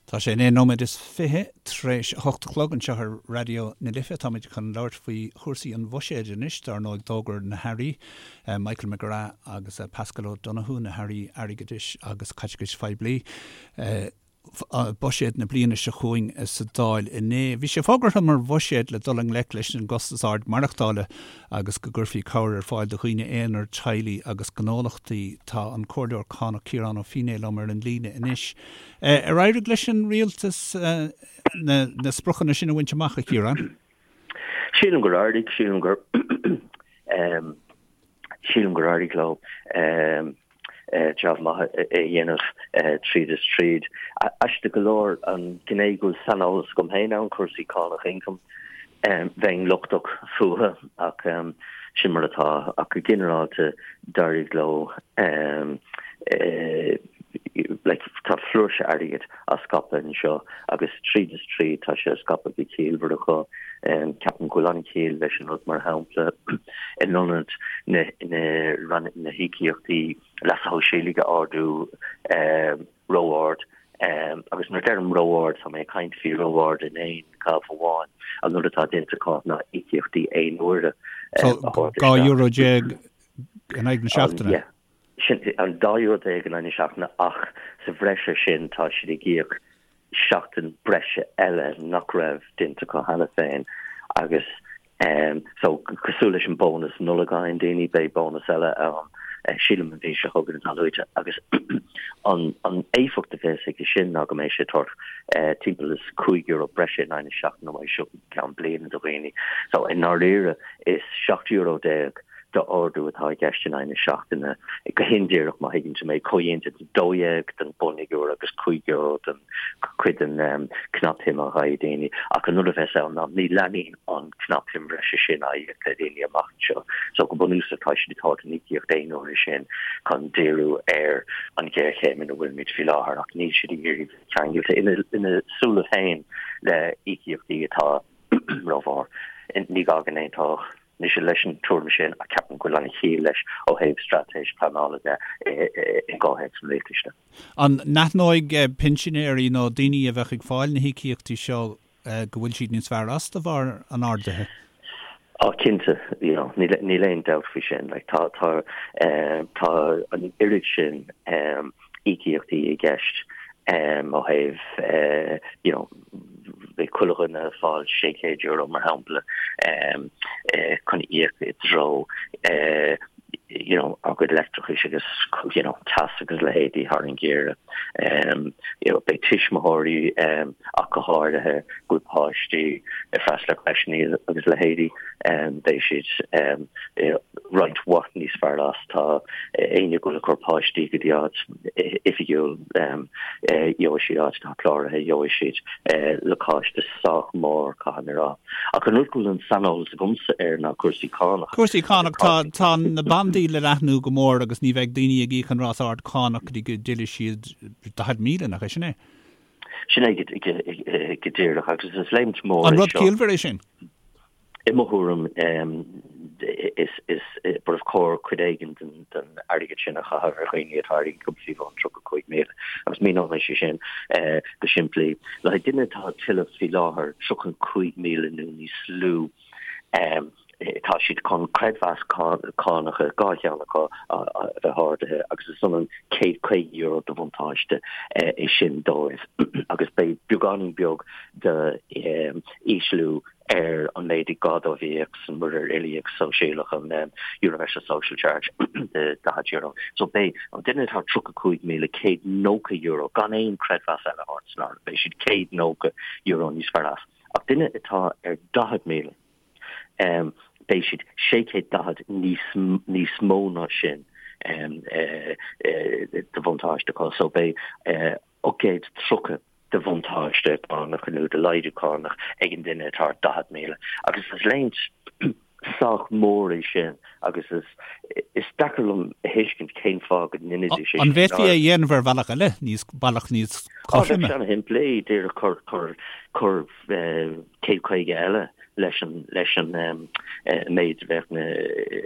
Tá sé 9 nóiméad is 20 tar éis a 8 a chlog anseo ar Raidió na Life. Táimid chun labhairt faoi chúrsaí an bhuiséid anois. Dar ndóigh d'fhógair na hAirí, Michael McGrath agus Paschal Donohoe, na hAirí Airgeadais agus Caiteachais Phoiblí, buiséad na bliana seo chugainn sa Dáil inné. Bhí sé fógartha mar bhuiséad le dul i ngleic leis an gcostas ard maireachtála agus go gcuirfí cabhair ar fáil do dhaoine aonair, teaghlaigh agus gnólachtaí. Tá an Comhairleoir Cánach Ciarán Ó Feinneadha liom ar an líne anois. Ar éirigh leis an rialtas na spriocanna sin a bhaint amach, a Chiaráin? Sílim gur éirigh, sílim gur sílim gur éirigh leo jab maith a dhéanamh tríd is tríd. Aisteach go leor an ghné go bhfuil saineolas agam féin ann, cúrsaí cánach ioncaim, bheinn lochtach fúthu ach sin mar atá. Ach go ginearálta d'éirigh leo like tá flúirse airgid á scaipeadh anseo agus tríd is tríd tá sé á scaipeadh go ciallmhar acu. Ceapaim go bhfuil an-chiall leis an rud mar shampla in ionad na na na híocaíochtaí leasa shóisialaigh a ardú ró-ard agus nuair a deirim ró-ard tá mé ag caint faoi ró-ard in aon ghabh amháin. An rud atá déanta acu ná íocaíochtaí aon uaire a thabhairt isteach. €12 euro in aghaidh na seachtaine? Yeah. Sin an €12 euro in aghaidh na seachtaine ach sa bhreis air sin tá siad ag íoc seachtain breise eile nach raibh déanta acu cheana féin agus so cosúil leis an bónas Nollag a fhaigheann daoine beidh bónas eile ann sílim an mhí seo chugainn atá luaite agus an an éifeacht a bheas aige sin ná go mbeidh sé ag tabhairt timpeall is €5 breise in aghaidh na seachtaine uaidh seo go ceann bliana do dhaoine. So i ndáiríre is €17 euro d'ardú atá i gceist in aghaidh na seachtaine. Go hindíreach, má thuigeann tú mé, comhdhéanta de 12 den bhunfhigiúr agus €5 den chuid den chnapshuim a gheobhaidh daoine. Ach an rud a bheas ann ná ní leanfaidh an chnapshuim bhreise sin á íoc le daoine amach anseo. So go bunúsach tá siad ag tabhairt an íocaíocht aon uaire sin chun díriú ar an ghéarchéim ina bhfuilimid faoi láthair ach níl siad ag iarraidh bheith ceangailte ina súile féin le íocaíochtaí atá rómhór. Ní gá go n-aontódh mise leis an tuairim sin ach ceapaim go bhfuil an-chiall leis ó thaobh straitéis pleanála de i gcomhthéacs an rialtais de. An n-aithneoidh pinsinéirí nó daoine a bheadh ag fáil na híocaíochtaí seo go bhfuil siad níos fearr as de bharr an ardaithe? Á cinnte, you know, níl aon dabht faoi sin. Like, tá, tá, tá an oiread sin íocaíochtaí i gceist ó thaobh you know beidh chuile dhuine ag fáil €600 mar shampla chun íoc i dtreo you know a gcuid leictreachais agus you know teas agus leithéidí thar an gheimhreadh. You know beidh tuismitheoirí ach go háirithe go bhfuil páistí ag freastal ar creiseanna agus leithéidí beidh siad roinnt mhaith níos fearr as. Tá éinne go bhfuil ag cur páistí go dtí áit oifigiúil, gheobhaidh siad áit atá cláraithe, gheobhaidh siad lacáiste sách mór, caithfidh mé a rá. Ach an rud go bhfuil an saineolas agamsa air ná cúrsaí cánach. Cúrsaí cánach, tá, tá na bandaí le leathnú go mór agus ní bheidh daoine ag íoc an ráta ard cánach go dtí go dtuillfidh siad 40,000, nach é sin é? Sin é go díreach agus is léimt mhór é seo. An rud ciallmhar é sin? I mo thuairim, is ba chóir cuid éigin den airgead sin a chaitheamh ar dhaoine atá ar ioncam faoi bhun 35,000. Agus míneoidh mé sin go simplí. Le haghaidh duine atá ag tuilleamh faoi láthair 35,000 nó níos lú, tá siad chun creidmheas cánacha, dhá cheann acu, a bheith ardaithe agus is ionann €150 de bhuntáiste é sin dóibh. Agus beidh beagáinín beag d'ísliú ar an méid is gá dóibh a íoc san muirear uilíoch sóisialach, an Universal Social Charge de €40. So beidh an duine atá €35,190 gan aon creidmheas eile a thabhairt san áireamh, beidh siad €190 níos fearr as. Ach duine atá ar 40,000, beidh siad 640 níos níos mó ná sin de bhuntáiste acu. So beidh 830 de bhuntáiste cánach nó de laghdú cánach ag an duine atá ar 40,000 agus is léimt sách mór é sin agus is is deacair liom a thuiscint cén fáth go ndéanfaidís é sin. An bhféadfaí é a dhéanamh ar bhealach eile, níos bealach níos cothroime? Bheadh sé ana-shimplí, díreach cur cur cur 150 eile leis an leis an méid a bheadh na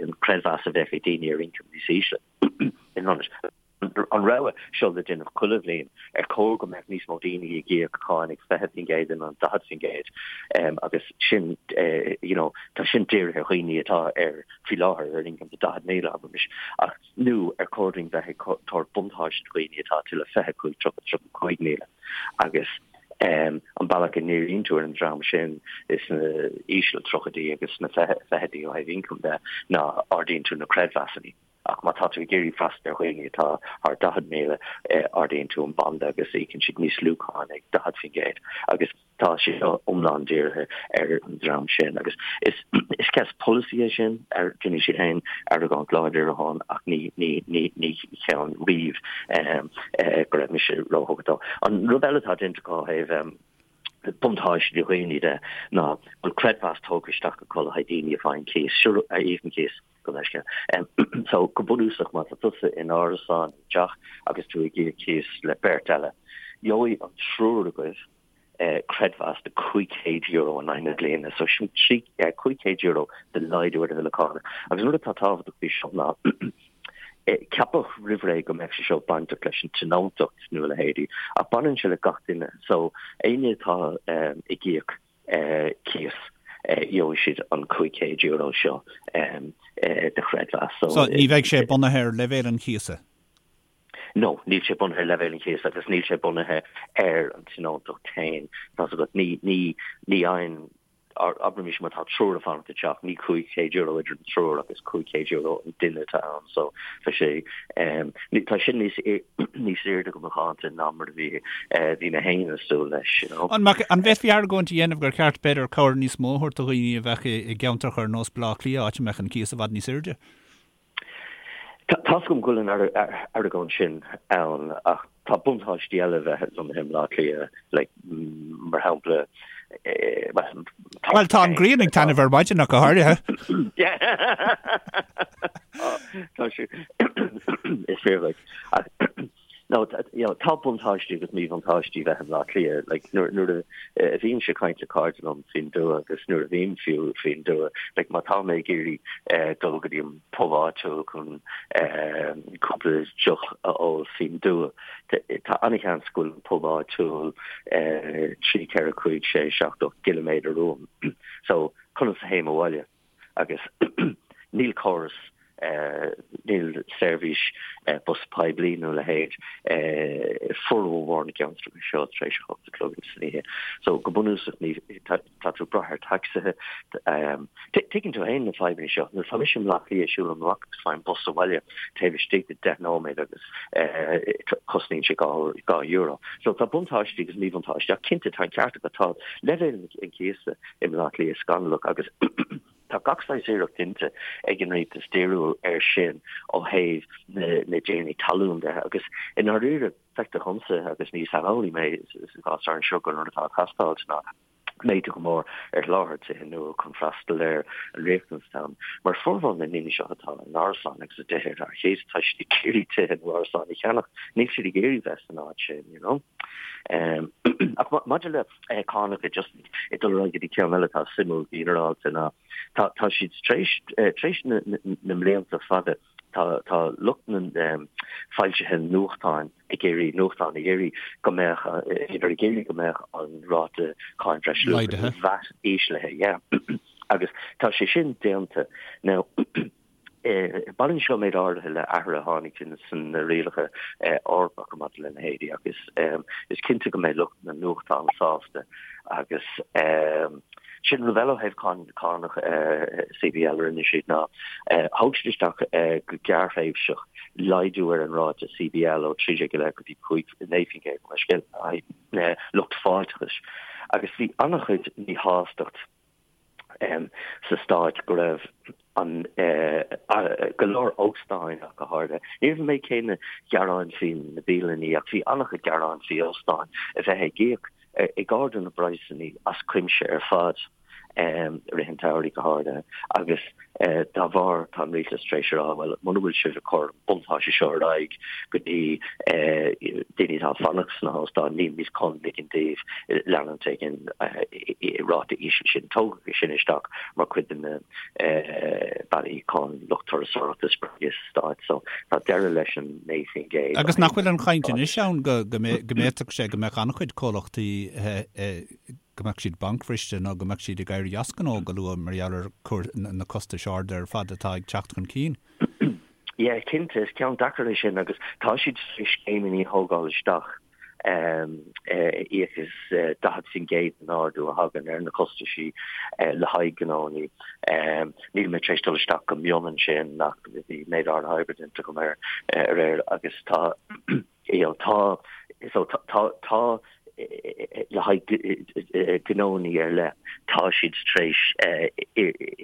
an creidmheas a bheadh ag daoine ar ioncam níos ísle in ionad. an rogha seo le déanamh chuile bhliain, ar chóir go mbeadh níos mó daoine ag íoc cáin ag 20% in ionad 40% agus sin you know tá sin dírithe ar dhaoine atá ar faoi láthair ar ioncam de 40,000 abraimis ach nó ar chóir dúinn bheith ag tabhairt buntáiste do dhaoine atá ag tuilleamh 25, 30, 35,000 agus an bealach a ndíríonn tú ar an dream sin sna íseal tríochaidí agus sna fichidí ó thaobh ioncaim de ná ardaíonn tú na creidmheasanna. Ach má tá tú ag iarraidh freastal ar dhaoine atá thar 40,000, ardaíonn tú an banda agus íocann siad níos lú cáin ag 40%. Agus tá sé seo iomlán dírithe ar an dream sin. Agus is is ceist polasaí é sin, déanfaidh siad féin argóint láidir ann ach ní ní ní ní cheann riamh go raibh mise róthugtha dó. An rud eile atá déanta acu ó thaobh buntáiste do dhaoine de ná go bhfuil creidmheas tógtha isteach acu le haghaidh daoine a fhaigheann cíos, a íocann cíos. Gabh mo leithscéal. So, go bunúsach, má tá tusa in árasán, i dteach, agus tú ag íoc cíos le beirt eile, gheobhaidh an triúr agaibh creidmheas de €500 in aghaidh na bliana. So, sin €500 de laghdú ar do bhille cánach. Agus an rud atá tábhachtach faoi seo ná, ceapadh roimh ré go mbeadh sé seo bainteach leis an tionóntacht nó a leithéidí, ach baineann sé le gach duine. So, éinne atá ag íoc cíos, gheobhaidh siad an €500 seo de chreidmheas. So ní bheidh sé bunaithe ar leibhéal an chíosa? No, níl sé bunaithe ar leibhéal an chíosa agus níl sé bunaithe ar an tionóntacht féin. Tá's agat, ní, ní, ní fhaigheann, abraimis má tá triúr ag fanacht i dteach, ní €500 idir an triúr ach is €500 an duine atá ann. So tá sé, tá sin níos níos airde go macánta ná mar a bhí bhí mé féin ag súil leis, you know. An mbeadh, an bhféadfaí argóint a dhéanamh gur cheart b'fhéidir cabhair níos mó a thabhairt do dhaoine a bheadh i gceantracha ar nós Baile Átha Cliath, áit a mbeadh an cíos i bhfad níos airde? Tá's agam go bhfuil an argóint sin ann ach tá buntáistí eile bheith lonnaithe i mBaile Átha Cliath, like, mar shampla, Bhuel, tá an ghrian ag taitneamh ar maidin ach go háirithe. Tá sé is fíor like ach no you know tá buntáistí agus míbhuntáistí bheith i mBleá Cliath like nuair nuair a a bhímse ag caint le cairde liom faoin dtuath agus nuair a bhím fiú faoin dtuath like má tá mé ag iarraidh eh, dul go dtí an pub áitiúil chun eh, cúpla deoch a ól faoin dtuath Tá an-sheans go bhfuil an pub áitiúil 3, 4, 5, 6, 7, 8 gciliméadar uaim. So, conas a théim abhaile? Agus níl córas, níl seirbhís bus poiblí nó a leithéid i formhór na gceantracha seo tar éis a hocht a chlog san oíche. So, go bunúsach ní, tá tú ag brath ar tacsaithe. Tuigeann tú féin na fadhbanna seo. Nuair atá mise i mBleá Cliath, siúlaim amach agus faighim bus abhaile taobh istigh de 10 nóiméad agus cosnaíonn sé €2. So tá buntáistí agus míbhuntáistí ach cinnte tá an ceart agat, tá leibhéal an chíosa i mBleá Cliath scannalach agus tá gach saghas iarracht déanta ag an rialtas díriú air sin ó thaobh na dtiarnaí talún de agus i ndáiríre Feictear dhomsa, agus ní saineolaí mé sa gcás anseo, gur an rud atá ag teastáil ná méadú go mór ar sholáthar tithe nua chun freastal ar an riachtanas atá ann. Mar formhór na ndaoine seo atá in árasáin agus i dtithe ar cíos, tá siad ag iarraidh tithe nó árasáin a cheannach, níl siad ag iarraidh bheith san áit sin, you know. Ach maidir le cánacha, just ag dul ar aghaidh go dtí ceann eile atá suimiúil go ginearálta ná tá siad tar éis, tar éis na mblianta fada, Tá tá lucht na foilsithe nuachtáin ag iarraidh nuachtán ag iarraidh go mbeadh idir ag iarraidh go mbeadh an ráta cáin bhreisluacha VAT íslithe yeah. Agus tá sé sin déanta. Now baineann seo méid áirithe le athruithe a tháinig sna rialacha Eorpacha maidir lena leithéidí agus is cinnte go mbeidh lucht na nuachtán sásta agus Sin rud eile ó thaobh cánach CBL a rinne siad ná thóg siad isteach go gearrthréimhseach laghdú ar an ráta CBL ó 13 go dtí 5, 9% mar scéal lucht fáilteachais agus bhí an-chuid míshástacht sa stát go raibh an go leor óstáin ach go háirithe. Ní raibh an méid céanna gearáin faoi na bialanna ach bhí an-chuid gearáin faoi óstáin a bheith ag íoc ag ardú na bpraghsanna as cuimse ar fad. i rith an tsamhraidh go háirithe agus dá bharr tá an rialtas tar éis a rá bhuel muna bhfuil sibh ag cur an buntáiste seo ar aghaidh go dtí daoine atá ag fanacht sna hóstáin nílimid chun ligean daoibh leanúint ag an ráta íseal sin. Tógadh é sin isteach mar chuid de na bealaí chun lucht turasóireachta a spreagadh sa stát so tá deireadh leis an 9%. Agus nach bhfuil an chaint anois ann go bhféadfadh sé go mbeadh an-chuid comhlachtaí go mbeadh siad bancbhriste nó go mbeadh siad ag éirí as gnó go luath mar gheall ar na costais arda ar fad atá ag teacht chun cinn. Yeah, cinnte, is ceann deacair é sin agus tá siad tar éis scéimeanna a thógáil isteach íoc as 40% den ardú a thagann ar na costaisí le haghaidh gnónnaí. Níl mé tar éis dul isteach go mion ansin ach bhí méid áirithe oibre déanta agam air aréir agus tá you know, tá so tá tá tá le haghaidh gnónnaí ar leith, tá siad tar éis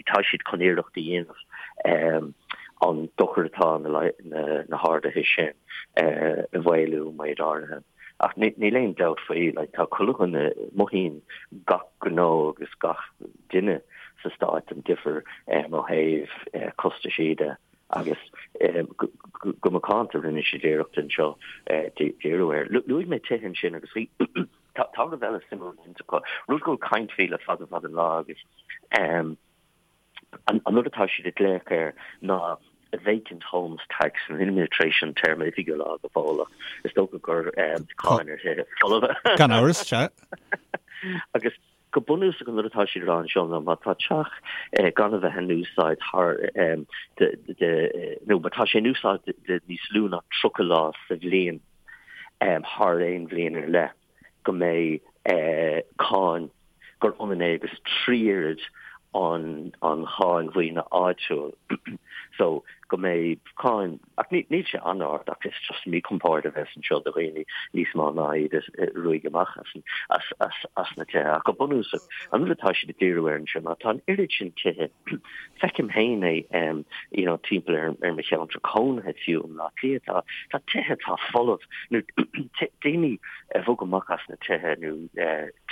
tá siad chun iarracht a dhéanamh an dochar atá na na harduithe sin a mhaolú méid áirithe. Ach níl aon dabht faoi, like, tá chuile dhuine, mothaíonn gach gnó agus gach duine sa stát an difear ó thaobh costaisí de. Agus go macánta rinne siad iarracht anseo díriú air. Luaigh mé tithe ansin agus bhí tá rud eile suimiúil déanta acu, rud go bhfuil caint faoi le fada fada an lá agus an rud atá siad ag glaoch air ná vacant homes tax. Níl mé tar éis an téarma oifigiúil a fháil go fóill ach is dócha gur cáin ar thithe folmha. Gan amhras, sea. Agus Go bunúsach an rud atá siad a rá anseo ná má tá teach gan a bheith in úsáid thar de nó má tá sé in úsáid de níos lú ná 30 lá sa bhliain thar aon bhliain ar leith go mbeidh cáin gur ionann é agus 3 oiread an an cháin mhaoine áitiúil so go mbeidh cáin Ach níl sé an-ard ach is just míchompord a bheas anseo do dhaoine níos mó ná iad a ruaigeadh amach as na tithe. Ach go bunúsach, an rud atá siad ag díriú air anseo ná tá an oiread sin tithe, feicim féin é you know timpeall ar ar mo cheantar cónaithe fiú i mBleá Cliath, tá tá tithe atá folamh nó daoine a bhog amach as na tithe nó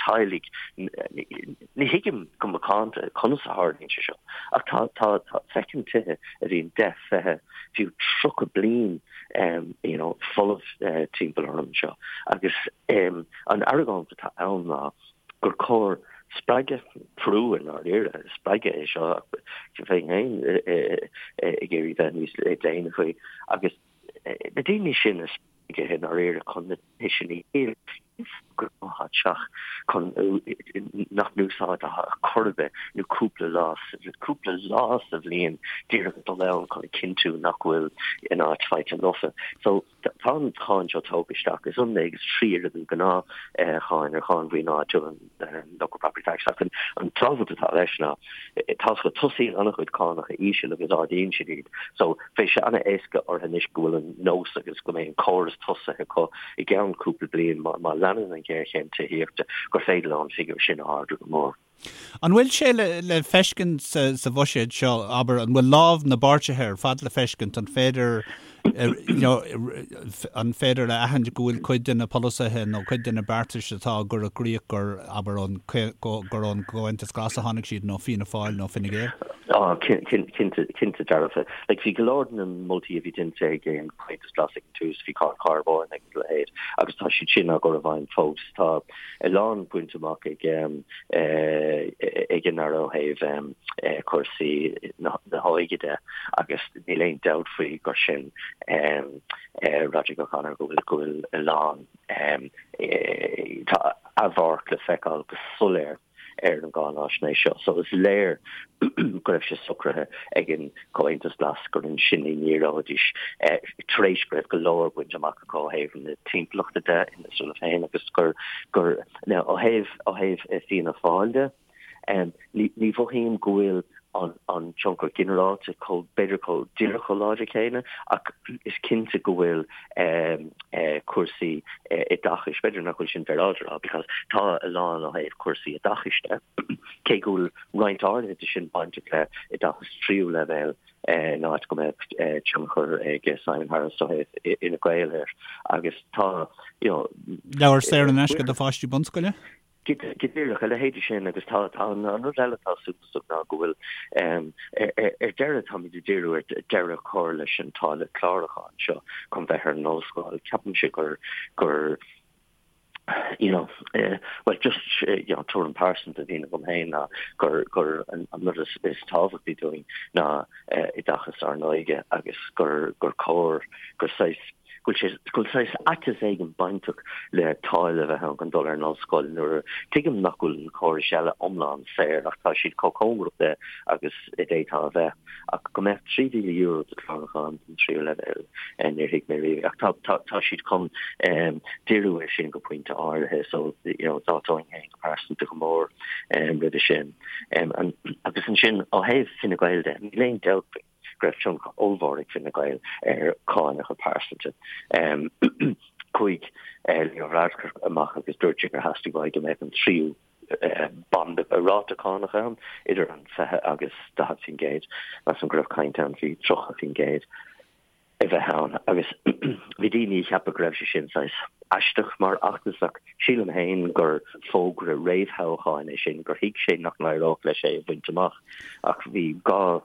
teaghlaigh Ní thuigim go macánta conas a tharlaíonn sé seo, ach tá, tá, tá, feicim tithe a bhíonn 10, 20, fiú 30 bliain you know, folamh timpeall orm anseo. Agus an argóint atá ann ná gur cóir spreagadh, brú i ndáiríre, spreagadh é seo, bheinn féin ag iarraidh bheith níos déine faoi, agus na daoine sin a spreagadh i ndáiríre chun na tithe sin a dhíol, gnáth-theach chun nach n-úsáidtear ar chor ar bith nó cúpla lá cúpla lá sa bhliain díreach dul ann chun a chinntiú nach bhfuil an áit faighte lofa. So tá an cháin seo tógtha isteach. Is ionann é agus 3 oiread an gnáth cháin ar cháin mhaoine áitiúil an local property tax ach an tábhacht atá leis ná tá go tosaíonn an-chuid cánacha íseal agus ardaíonn siad iad. So beidh sé an-éasca orthu anois go bhfuil an nós agus go mbeidh an córas tosaithe acu i gceann cúpla bliain má leanann an ghéarchéim tithíochta gur féidir leo an figiúr sin a ardú go mór. An bhfuil sé le feiscint sa bhuiséad seo, abair, an bhfuil lámh na bpáirtithe ar fad le feiscint, an féidir you know an féidir a aithint go bhfuil cuid de na polasaithe nó cuid de na beartais atá á gcur i gcrích gur, abair, ón, gur ón gComhaontas Glas a tháinig siad nó Fianna Fáil nó Fine Gael? Á, cinnte, cinnte dearfa. Like, bhí go leor de na moltaí a bhí déanta ag an Comhaontas Glas ag an tús, bhí cáin charbóin agus a leithéid, agus tá siad sin á gcur i bhfeidhm fós. Tá a lán bainte amach ag ag an Aire ó thaobh cúrsaí na hóige de agus níl aon dabht faoi gur sin Roderic O'Connor go bhfuil go bhfuil a lán tá a mharc le feiceáil go soiléir ar an gcáináisnéis seo. So is léir go raibh sé socraithe ag an Comhaontas Glas gur ansin a ndíreoidís tar éis go raibh go leor bainte amach acu ó thaobh na timpeallachta de ina súile féin agus gur gur now ó thaobh ó thaobh Fianna Fáil de ní ní mhothaím go bhfuil an an tionchar ginearálta chomh b'fhéidir chomh díreach chomh láidir céanna ach is cinnte go bhfuil cúrsaí oideachais, b'fhéidir nach bhfuil sin féaráilte a rá because tá a lán ó thaobh cúrsaí oideachais de, cé go bhfuil roinnt áirithe de sin bainteach le oideachas tríú leibhéal in áit go mbeadh tionchar ag Simon Harris ó thaobh Fhine Gael air agus tá you know Leabhair saor in aisce do pháistí bunscoile? Go díreach, a leithéidí sin agus tá an rud eile atá suntasach ná go bhfuil ar deireadh táimid ag díriú ar deireadh a chur leis an táille clárúcháin seo chun bheith ar an ollscoil. Ceapaimse gur gur you know well just you know tuairim pearsanta a bhíonn agam féin ná gur gur an rud is is tábhachtaí dúinn ná oideachas ár n-óige agus gur gur cóir gur saghas go bhfuil sé, go bhfuil saghas aiteas éigin bainteach le táille a bheith ann chun dul ar an ollscoil nuair a, tuigim nach bhfuil na córais eile iomlán saor ach tá siad chomh cóngarach de agus a d'fhéadfá a bheith. Ach go mbeadh €3,000 do chlárúchán don tríú leibhéal, níor thuig mé riamh. Ach tá, tá, tá siad chun díriú air sin go pointe áirithe so, you know, d'fháilteoinn féin go pearsanta go mór roimhe sin. Agus ansin ó thaobh Fine Gael de, níl aon dabht faoi. go raibh tionchar ollmhór ag Fine Gael ar chánacha pearsanta. Chuaigh Leo Varadkar amach agus dúirt sé gur theastaigh uaidh go mbeadh an tríú banda ráta cánach ann, idir an 20 agus 40%. Measaim go raibh caint ann faoi 30%. a bheith ann agus bhí daoine a cheapadh go raibh sé sin saghas aisteach mar fheachtas ach sílim féin gur fógra réamhthoghcháin é sin, gur thuig sé nach n-éireodh leis é a bhaint amach ach bhí dhá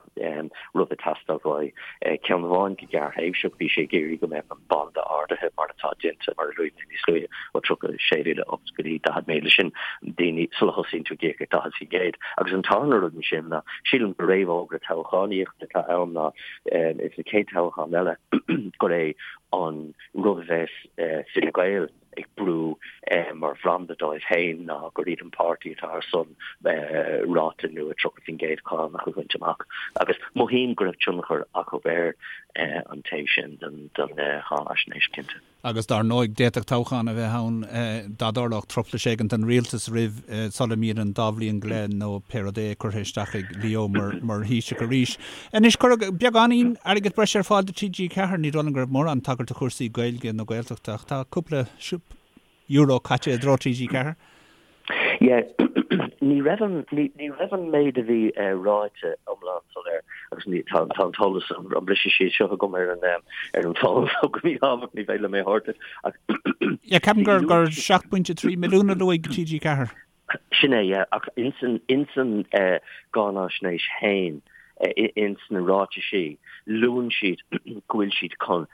rud ag teastáil uaidh. Ceann amháin go gearrthréimhseach, bhí sé ag iarraidh go mbeadh an banda ardaithe mar atá déanta, mar a luaigh mé níos luaithe, ó 36,000 up go dtí 40,000, sin daoine sula thosaíonn tú ag íoc ag 40%. Agus an tarna rud ansin ná sílim gur réamhfhógra toghchánaíochta atá ann ná Ins na chéad toghchán eile gur é an rud a bheas Fine Gael ag brú mar bhranda dóibh féin ná gur iad an páirtí atá ar son ráta nua 30% cánach a bhaint amach. Agus mothaím go raibh tionchar acu ar an taobh sin den cháinaisnéis, cinnte. Agus dar ndóigh, d'fhéadfadh toghchán a bheith ann dá dtarlódh truflais éigin don rialtas roimh sula mbíonn an dá bhliain go leith nó pé rud é curtha isteach ag Leo mar mar Thaoiseach arís. Anois, cuireadh beagáinín airgead breise ar fáil do TG4. Ní dóigh liom go raibh mórán tagairt do chúrsaí Gaeilge nó Gaeltachta ach tá cúpla euro caite i dtreo TG4. Yeah, ní raibh an, ní, ní raibh an méid a bhí ráite iomlán soiléir agus ní, tá, tá an t-eolas, an, an briseadh síos seo agam ar an, ar an bhfón so go míshámhach ní féidir liom é a thabhairt duit ach Yeah, ceapaim gur, gur 7.3 milliún a luaigh TG4. Sin é, yeah, ach ins an, ins an gcáinaisnéis féin, ins na ráitisí, luann siad go bhfuil siad chun,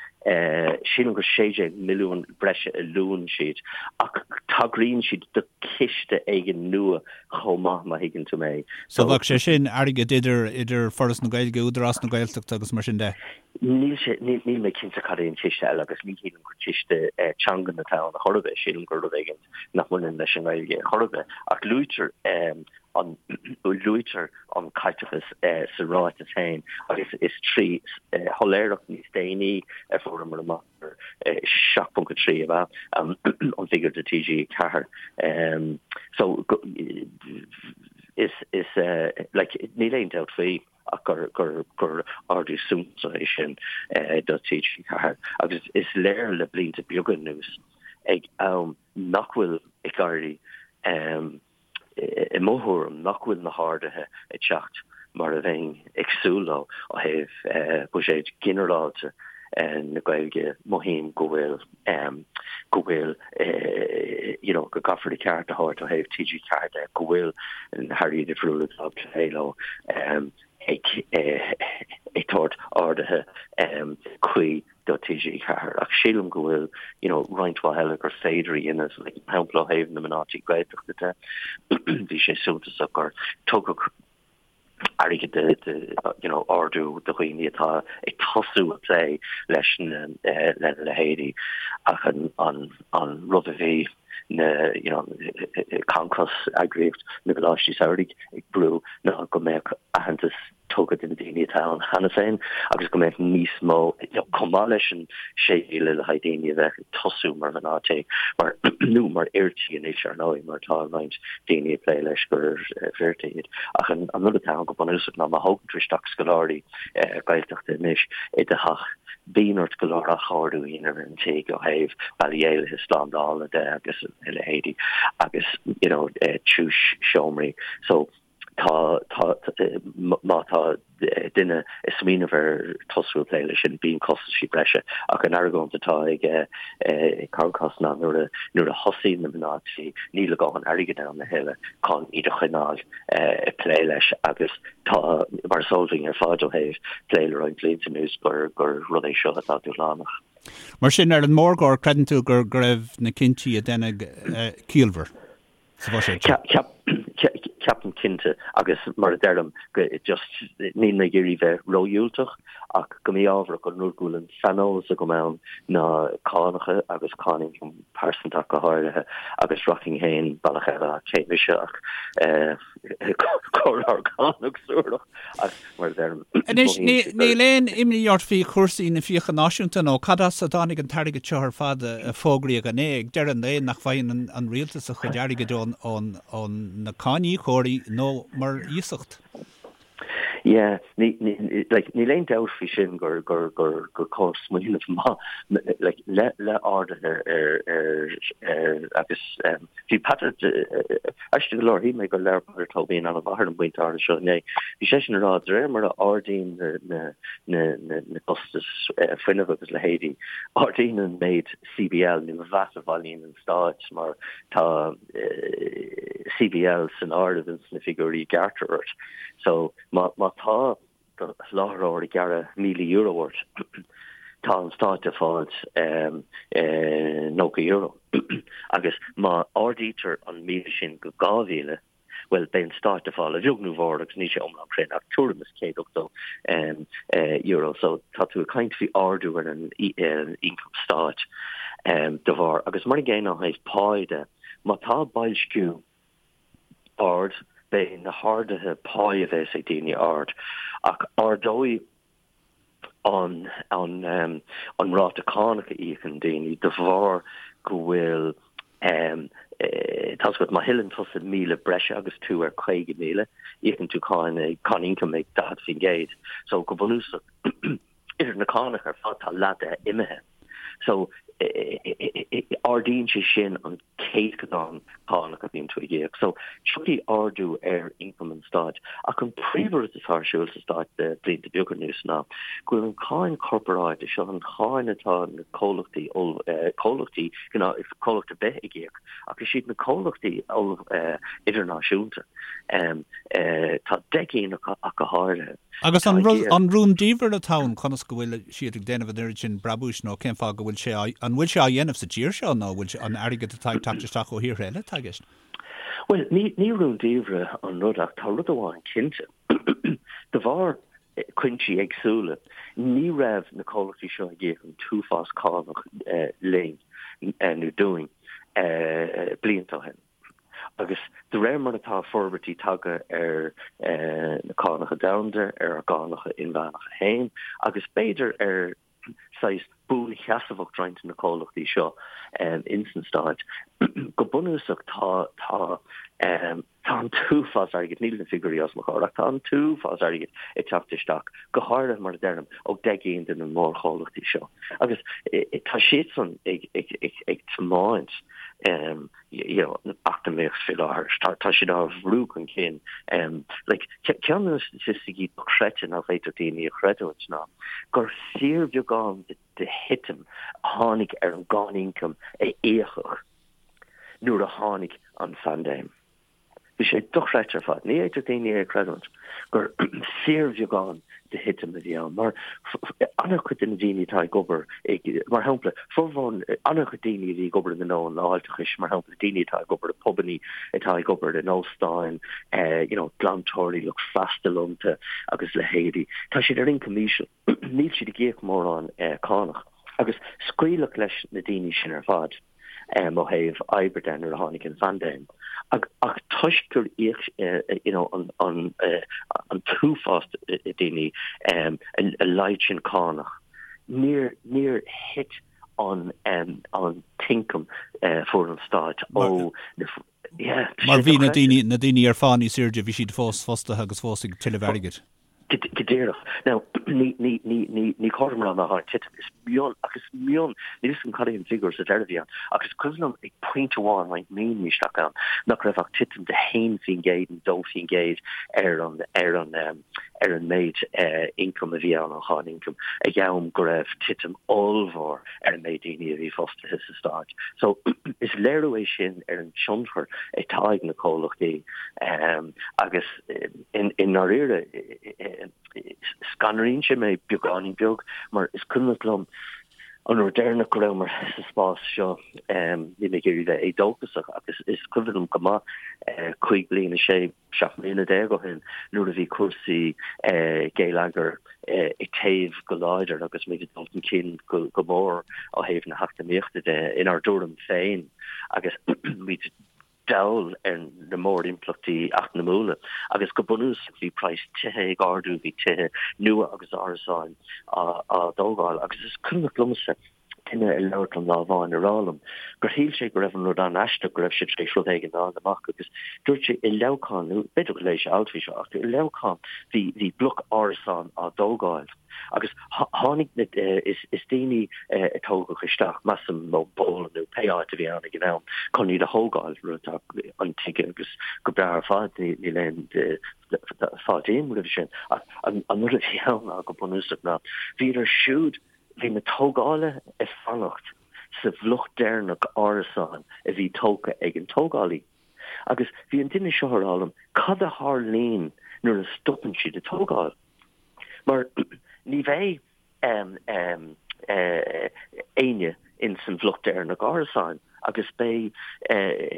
sílim gur 16 milliún breise a luann siad, ach tagraíonn siad do chiste éigin nua chomh maith, má thuigeann tú mé. So bheadh sé sin airgead idir, idir Foras na Gaeilge, Údarás na Gaeltachta agus mar sin de? Níl sé, níl mé cinnte cad é an ciste eile agus ní shílim gur ciste teangan atá ann a chor ar bith, sílim gur rud éigin nach mbaineann leis an nGaeilge chor ar bith. Ach luaitear an luaitear an caiteachas sa ráiteas féin agus is trí shoiléireacht níos déanaí a fuaireamar amach gur 7.3 ab ea an figiúr do TG4. So is is like níl aon dabht faoi ach gur gur gur ardú suntasach é sin do TG4 agus is léir le blianta beaga anuas ag am nach bhfuil ag éirí i mo thuairim, nach bhfuil na harduithe ag teacht mar a bheinn ag súil leo ó thaobh buiséad ginearálta na Gaeilge. Mothaím go bhfuil, go bhfuil, you know, go gcaithfear a ceart a thabhairt ó thaobh TG4 de, go bhfuil na hairí difriúla atá ag plé leo ag tabhairt arduithe cuí do TG4 ach sílim go bhfuil you know roinnt mhaith eile gur féidir a dhéanamh, like mar shampla ó thaobh na mná tí Gaeltachta de bhí sé suntasach gur tugadh airgead de, de you know ardú do dhaoine atá ag tosú ag plé leis na lena leithéidí ach an an an rud a bhí na you know Concos eagraíocht na gcoláistí samhraidh ag brú ná go mbeadh aitheantas tugtha do na daoine atá ann cheana féin agus go mbeadh níos mó, chomh maith leis an 6,000 le haghaidh daoine a bheadh ag tosú mar mhná tí, mar, nó mar fhir tí anois, ar ndóigh, mar tá roinnt daoine ag plé leis gur fir tí iad. Ach an rud atá ann go bunúsach ná má thógann tú isteach scoláirí Gaeltachta anois i do theach, bíonn ort go leor athchóiriú a dhéanamh ar an tigh ó thaobh bealaí éalaithe slándála de agus a leithéidí agus, you know, tiús seomraí. So. Tá, tá, má tá duine ag smaoineamh ar tosú ag plé leis sin, bíonn costaisí breise. Ach an argóint atá ag Concos ná nuair a, nuair a thosaíonn na mná tí, níl a dhóthain airgid ann a thuilleadh chun iad a choinneáil ag plé leis agus tá, mar is eol dúinn ar fad ó thaobh plé le roinnt blianta anuas, gur, gur rud é seo atá dúshlánach. Mar sin, ar an mórgóir, creideann tú go raibh na cinntí a deineadh ciallmhar sa bhuiséad seo? Ceapaim cinnte, agus mar a deirim, just níl mé ag iarraidh bheith ródhiúltach, ach go mí-ámharach an rud go bhfuil an saineolas agam ann ná cánacha agus cáin ioncaim pearsanta ach go háirithe, agus rachainn féin bealach eile ach cé mise ach comhairleoir cánach suarach. Ach mar a deirim, Anois, níl aon imní ort faoi chúrsaí na fiacha náisiúnta nó cad as a dtáinig an t-airgead seo ar fad a fógraíodh inné? Ag deireadh an lae, nach bhfaigheann an rialtas a chuid airgid ó na cáiníocóirí nó mar iasacht? Yeah, like, níl aon dabht faoi sin gur gur gur gur cóir smaoineamh maith like, le le arduithe ar ar ar agus um, Bhí Peadar, aisteach go leor, shíl mé gur labhair Peadar Tóibín an-mhaith ar an bpointe áirithe seo inné. Bhí seisean ag rá, de réir mar a ardaíonn na costais fuinnimh agus leithéidí, ardaíonn an méid CBL nó VAT a bhailíonn an Stát mar tá CBL san áireamh ins na figiúirí a ghearrtar ort. So má tá do sholáthróir ag gearradh €1,000 ort, tá an stát ag fáilt €90. Agus má ardaítear an 1,000 sin go 2,000, bhuel, beidh an stát ag fáil, a bheag nó a mhór, agus níl sé iomlán cruinn, ach tuairim is €180. So tá tú ag caint faoi ardú ar an ioncam stáit de bharr. Agus mar an gcéanna ó thaobh pá de, má tá boilsciú ard, beidh na harduithe páí a bheas ag daoine ard, ach ardóidh an an ráta cánach a íocann daoine de bharr go bhfuil tá's agat, má thuilleann tusa 1,000 breise agus tú ar 50,000, íocann tú cáin cáin ioncaim ag 40%. So go bunúsach idir na cánacha ar fad tá leath de imithe. So ardaíonn sé sin an céatadán cánach a bhíonn tú ag íoc. So tiocfaidh ardú ar ioncam an stáit. Ach an príomhrud atá ar siúl sa stát le blianta beaga anuas ná go bhfuil an cáin chorparáide, seo an cháin atá na comhlachtaí, comhlachtaí, comhlacht ar bith ag íoc, ach is iad na comhlachtaí idirnáisiúnta, tá 10 gcinn acu ach go háirithe. Agus an rúndiamhair atá ann, conas go bhfuil siad ag déanamh an oiread sin brabúis nó cén fáth go bhfuil sé á, an bhfuil sé á dhéanamh sa tír seo nó an bhfuil sé, an airgead atá ag teacht isteach ó thíortha eile atá i gceist? Bhuel, ní, ní rúndiamhair an rud ach tá rud amháin cinnte. De bharr cuinsí éagsúla, ní raibh na comhlachtaí seo ag íoc an t-uafás cánach linn nó dúinn blianta ó shin. Agus de réir mar atá forbairtí tagtha ar na cánacha domhanda, ar ár gcánacha inmheánacha féin, agus b'fhéidir ar saghas buansheasmhacht roinnt de na comhlachtaí seo ins na Stáit, go bunúsach tá tá tá an t-uafás airgid, níl na figiúirí os mo chomhair, ach tá an t-uafás airgid ag teacht isteach, go háirithe mar a deirim, ó 10 gcinn de na mórchomhlachtaí seo. Agus tá siadsan ag ag ag ag tiomáint you know, eacnamaíocht faoi láthair. Tá, tá siad á bhrú chun cinn. Um, like, ceann de na staitisticí dochreidte nach bhféadfadh daoine a chreidiúint ná gur fíorbheagán de, de thitim a tháinig ar an gcáin ioncaim a íocadh nuair a tháinig an phaindéim. Bhí sé dochreidte ar fad. Ní fhéadfadh daoine é a chreidiúint gur fíorbheagán de thitim a bhí ann, mar an-chuid de na daoine atá ag obair, mar shampla, formhór, an-chuid daoine a bhí ag obair i ngnó an fháilteachais, mar shampla, daoine atá ag obair i bpubannaí, atá ag obair in óstáin, you know, glantóirí, lucht freastail iontu agus leithéidí, tá siad ar ioncam íseal. Níl siad ag íoc mórán cánach. Agus scaoileadh leis na daoine sin ar fad. ó thaobh oibre de nuair a tháinig an phaindéim. Ach toisc gur íoc you know an an an t-uafás daoine a laghad sin cánach, níor níor thit an an t-ioncam a fuair an stát ó na yeah, Mar bhí na daoine na daoine ar phá níos airde, bhí siad fós fostaithe agus fós ag tuilleamh airgid. Go díreach. Now, ní, ní, ní, ní, ní cóir dom a rá nár tháinig titim. Is mion, ach is mion, níl 'fhios agam cad é an figiúr sa deireadh a bhí ann, ach is cuimhin liom ag pointe amháin roinnt míonna isteach ann nach raibh ach titim de 1% nó 2% ar an, ar an, ar an méid ioncaim a bhí ann, an cháin ioncaim, ag am go raibh titim ollmhór ar an méid daoine a bhí fostaithe sa stát. So, is léiriú é sin ar an tionchar atá ag na comhlachtaí agus, I ndáiríre, scanraíonn sé mé beagáinín beag mar is cuimhneach liom an uair deireanach go rabhamar sa spás seo, níl mé ag iarraidh bheith éadóchasach ach is cuimhin liom go maith 5 bliana, 6, 17 mbliana ó shin nuair a bhí cúrsaí geilleagair ag téamh go láidir agus muid ag dul chun cinn go mór ó thaobh na heacnamaíochta de inár dtuairim féin agus muid dall ar na mórimpleachtaí eacnamúla agus go bunúsach bhí praghas tithe ag ardú, bhí tithe nua agus árasáin á dtógáil agus is cuimhneach liomsa duine ag labhairt liom lá amháin ag rá liom gur shíl sé go raibh an rud an-aisteach go raibh sé tar éis rud éigin a fháil amach agus dúirt sé i Leamhcán, nó b'fhéidir gur léigh sé alt faoi seo, ach i Leamhcán bhí bhí bloc árasán á dtógáil. Agus tháinig na, is daoine a tógadh isteach, measaim, ón bPolainn nó pé áit a bhí ann ag an am, chun iad a thógáil, rud atá intuigthe agus go breá ar fad, níl aon fáilte roimhe sin. Ach an rud a bhí ann ná go bunúsach ná, bhíodar siúd, bhí na tógálaithe ag fanacht sa bhloc deireanach árasán a bhí tógtha ag an tógálaí. Agus bhí an duine seo ag rá liom, cad a tharlaíonn nuair a stopann siad ag tógáil? Mar ní bheidh éinne ins an bhloc deireanach árasáin agus beidh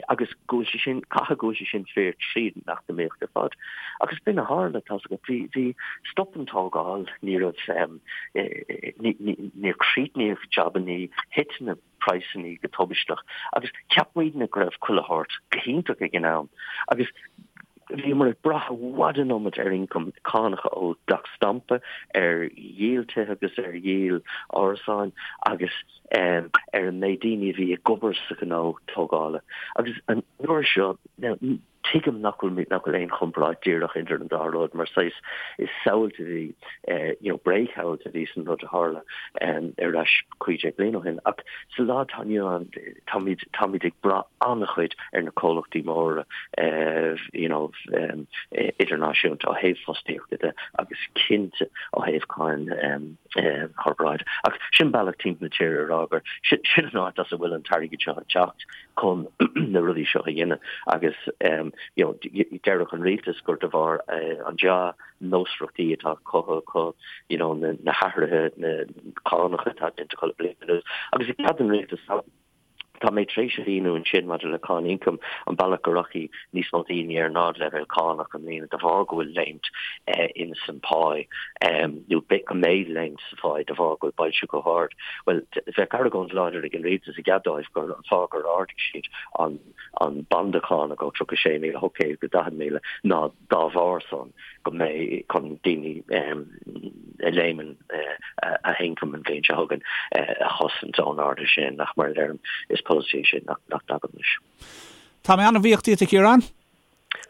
agus go bhfuil sé sin, caithfidh go bhfuil sé sin fíor tríd an eacnamaíocht ar fad. Agus b'in a tharla, tá's agat, bhí, bhí, stop an tógáil, ní raibh, níor críochnaíodh jabannaí, thit na. praghsanna go tubaisteach agus cheap muidne go raibh chuile shórt go hiontach ag an am agus bhíomar ag brath i bhfad an iomad ar ioncam cánacha ó dhleacht stampa, ar dhíol tithe agus ar dhíol árasáin agus ar an méid daoine a bhí ag obair sa ghnó tógála. Agus an uair seo, now, Tuigim nach bhfuil nach bhfuil aon chomparáid díreach idir an dá rud mar saghas is samhailt a bhí you know bréagshamhailt a bhí san rud a tharla ar ais 15 bliain ó shin ach sa lá atá inniu ann táimid táimid ag brath an-chuid ar na comhlachtaí móra you know idirnáisiúnta ó thaobh fostaíochta de agus cinnte ó thaobh cáin chorparáide. Ach sin bealach timpeall na tíre a rá gur sin an áit as a bhfuil an t-airgead seo ag teacht. chun na rudaí seo a dhéanamh agus you know déarfadh an rialtas gur de bharr an dea-nósmhaireachtaí atá cothaithe acu you know na hathruithe na cánacha atá déanta acu le bliain anuas agus i gcead don rialtas tá mé tar éis a mhíniú ansin maidir le cáin ioncaim an bealach go rachaidh níos mó daoine ar nádleibhéal cánach i mbliana de bharr go bhfuil léimt in san pá nó go mbeidh léimt sa phá de bharr go bhfuil boilsciú chomh hard. Bhuel, bheadh argóint láidir ag an rialtas i gcead dóibh gur an fáth gur ardaigh siad an an banda cánach ó 36,800 go 40,000 ná dá bharr san go mbeidh chun daoine a léimeann a n-ioncam an bhliain seo chugainn a chosaint ón ardú sin ach mar a deirim is polasaí é sin nach dtagaim leis. Tá mé an-bhuíoch díot a Chiaráin.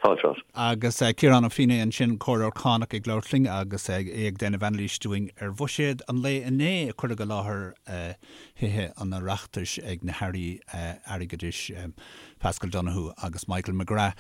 Fáilte romhat. Agus Ciarán Ó Feinneadha ansin, Comhairleoir Cánach ag labhairt linn agus é ag déanamh anailís dúinn ar bhuiséad an lae inné a cuireadh i láthair Thithe an Oireachtais ag na hAirí Airgeadais, Paschal Donohoe agus Michael McGrath.